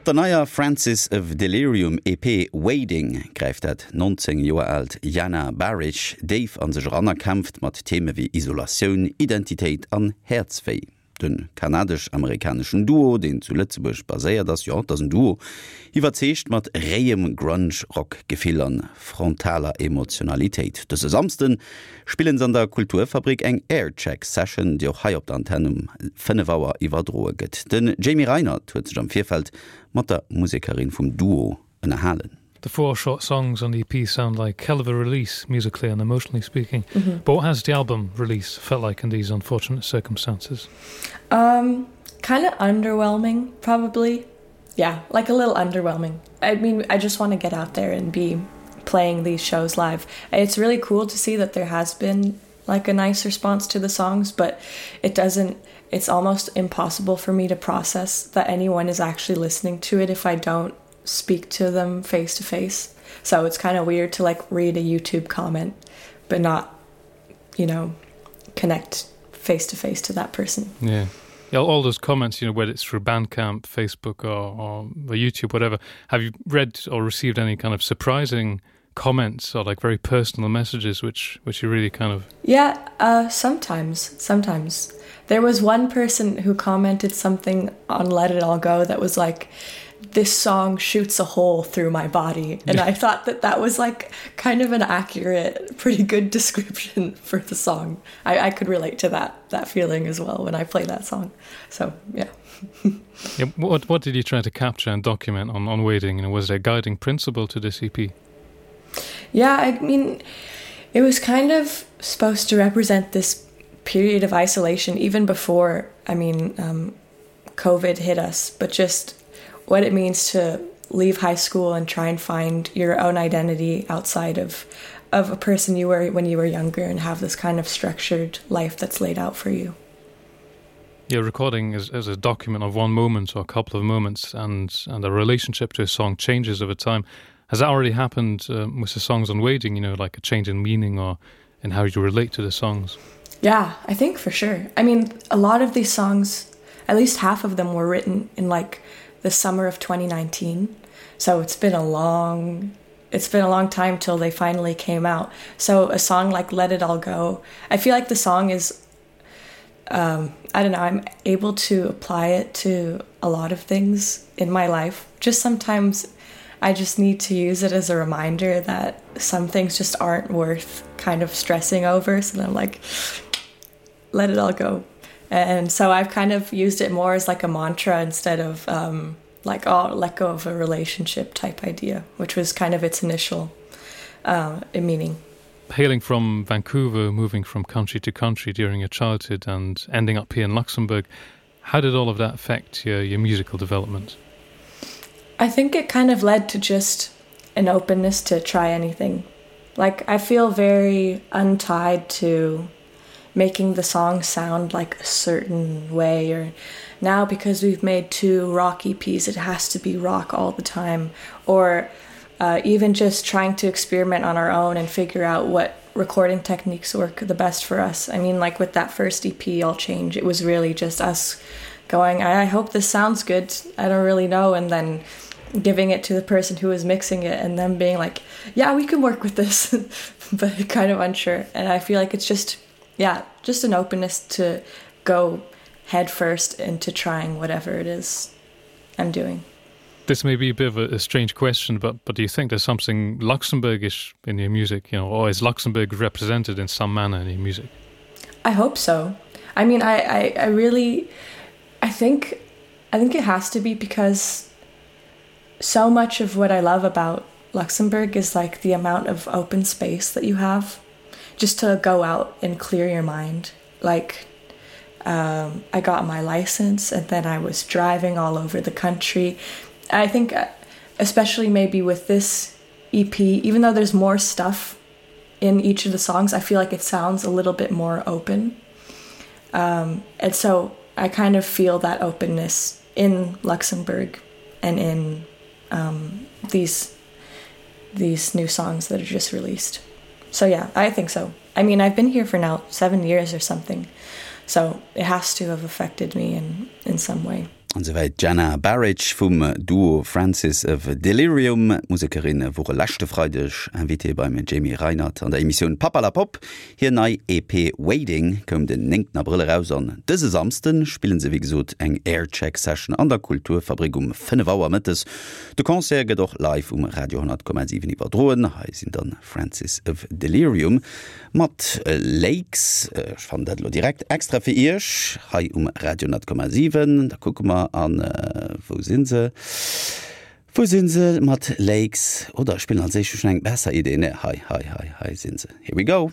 Op der neier Francis of Delirium EP Wading gräift dat 19 Joer aalt Jana Bahrich déif an sech eran a kämpft mat Theme wéi Isolatioun, Identitéit an Häerzwéi. De kanadesch-amerikaneschen Duo, deen zu Lëtzebuerg baséiert ass, jo, et ass en Duo, iwwerzeegt mat réiem Grunge-Rock-Gefill an frontaler Emotionalitéit. Dëse Samsde spillen se an der Kulturfabrik eng Aircheck-Session, déi och hei op der Antenn um 5 Auer iwwerdroe gëtt. Den Jamie Reinert huet sech am Virfeld mat der Musekerin vum Duo ënnerhalen. The four short songs on the EP sound like hell of a release musically and emotionally speaking. Mm -hmm. But what has the album release felt like in these unfortunate circumstances? Um kind of underwhelming probably. Yeah, like a little underwhelming. I mean, I just want to get out there and be playing these shows live. It's really cool to see that there has been like a nice response to the songs, but it doesn't it's almost impossible for me to process that anyone is actually listening to it if I don't speak to them face to face. So it's kind of weird to like read a YouTube comment but not you know connect face to face to that person. Yeah. Yeah, all those comments, you know, whether it's through Bandcamp, Facebook or, or YouTube, whatever, have you read or received any kind of surprising comments or like very personal messages which which you really kind of Yeah, uh sometimes, sometimes. There was one person who commented something on Let It All Go that was like this song shoots a hole through my body and yeah. I thought that that was like kind of an accurate pretty good description for the song. I, I could relate to that that feeling as well when I play that song. So yeah. yeah what what did you try to capture and document on on waiting and was there a guiding principle to this EP? Yeah, I mean it was kind of supposed to represent this period of isolation even before I mean um, COVID hit us, but just what it means to leave high school and try and find your own identity outside of of a person you were when you were younger and have this kind of structured life that's laid out for you. Yeah, recording is, is a document of one moment or a couple of moments and and a relationship to a song changes over time. Has that already happened um, with the songs on waiting, you know, like a change in meaning or in how you relate to the songs? Yeah, I think for sure. I mean, a lot of these songs, at least half of them were written in like the summer of 2019. So it's been a long it's been a long time till they finally came out. So a song like Let It All Go, I feel like the song is um, I don't know, I'm able to apply it to a lot of things in my life. Just sometimes I just need to use it as a reminder that some things just aren't worth kind of stressing over. So then I'm like, let it all go. And so I've kind of used it more as like a mantra instead of um, like oh let go of a relationship type idea, which was kind of its initial uh, meaning. Hailing from Vancouver, moving from country to country during your childhood and ending up here in Luxembourg, how did all of that affect your, your musical development? I think it kind of led to just an openness to try anything. Like I feel very untied to making the song sound like a certain way or now because we've made two rock EPs it has to be rock all the time or uh, even just trying to experiment on our own and figure out what recording techniques work the best for us. I mean like with that first EP all change it was really just us going I, I hope this sounds good I don't really know and then giving it to the person who was mixing it and them being like yeah we can work with this but kind of unsure and I feel like it's just yeah just an openness to go head first into trying whatever it is I'm doing. This may be a bit of a, a strange question, but but do you think there's something Luxembourgish in your music, you know, or is Luxembourg represented in some manner in your music? I hope so. I mean I, I, I really I think I think it has to be because so much of what I love about Luxembourg is like the amount of open space that you have just to go out and clear your mind. Like um, I got my license and then I was driving all over the country. I think uh, especially maybe with this EP, even though there's more stuff in each of the songs, I feel like it sounds a little bit more open. Um, and so I kind of feel that openness in Luxembourg and in um, these these new songs that are just released. So yeah, I think so. I mean, I've been here for now 7 years or something. So it has to have affected me in in some way. An souwäit d'Jana Bahrich vum Duo Francis of Delirium. D'Musekerinne wore leschte Freideg Invitée beim Jamie Reinert an der Emissioun Papperlapopp. Hir nei EP Waiting koum den 9 Abrëll eraus an dëse Samsde spillen se wéi gesot eng Aircheck Session an der Kulturfabrik um 5 Auer mëttes. De Concert gëtt och live um Radio 10,7 iwwerdroen. Hei sinn dann Francis of Delirium. Mat Lakes, ech fannen dat elo direkt extra fir iech hei um Radio 10,7. Da kucke mer an, wou si se, wou si se mat Lakes? Oder ech spillen als éischt, ech hunn eng besser Idee, ne, hei, hei, hei, hei si se, here we go.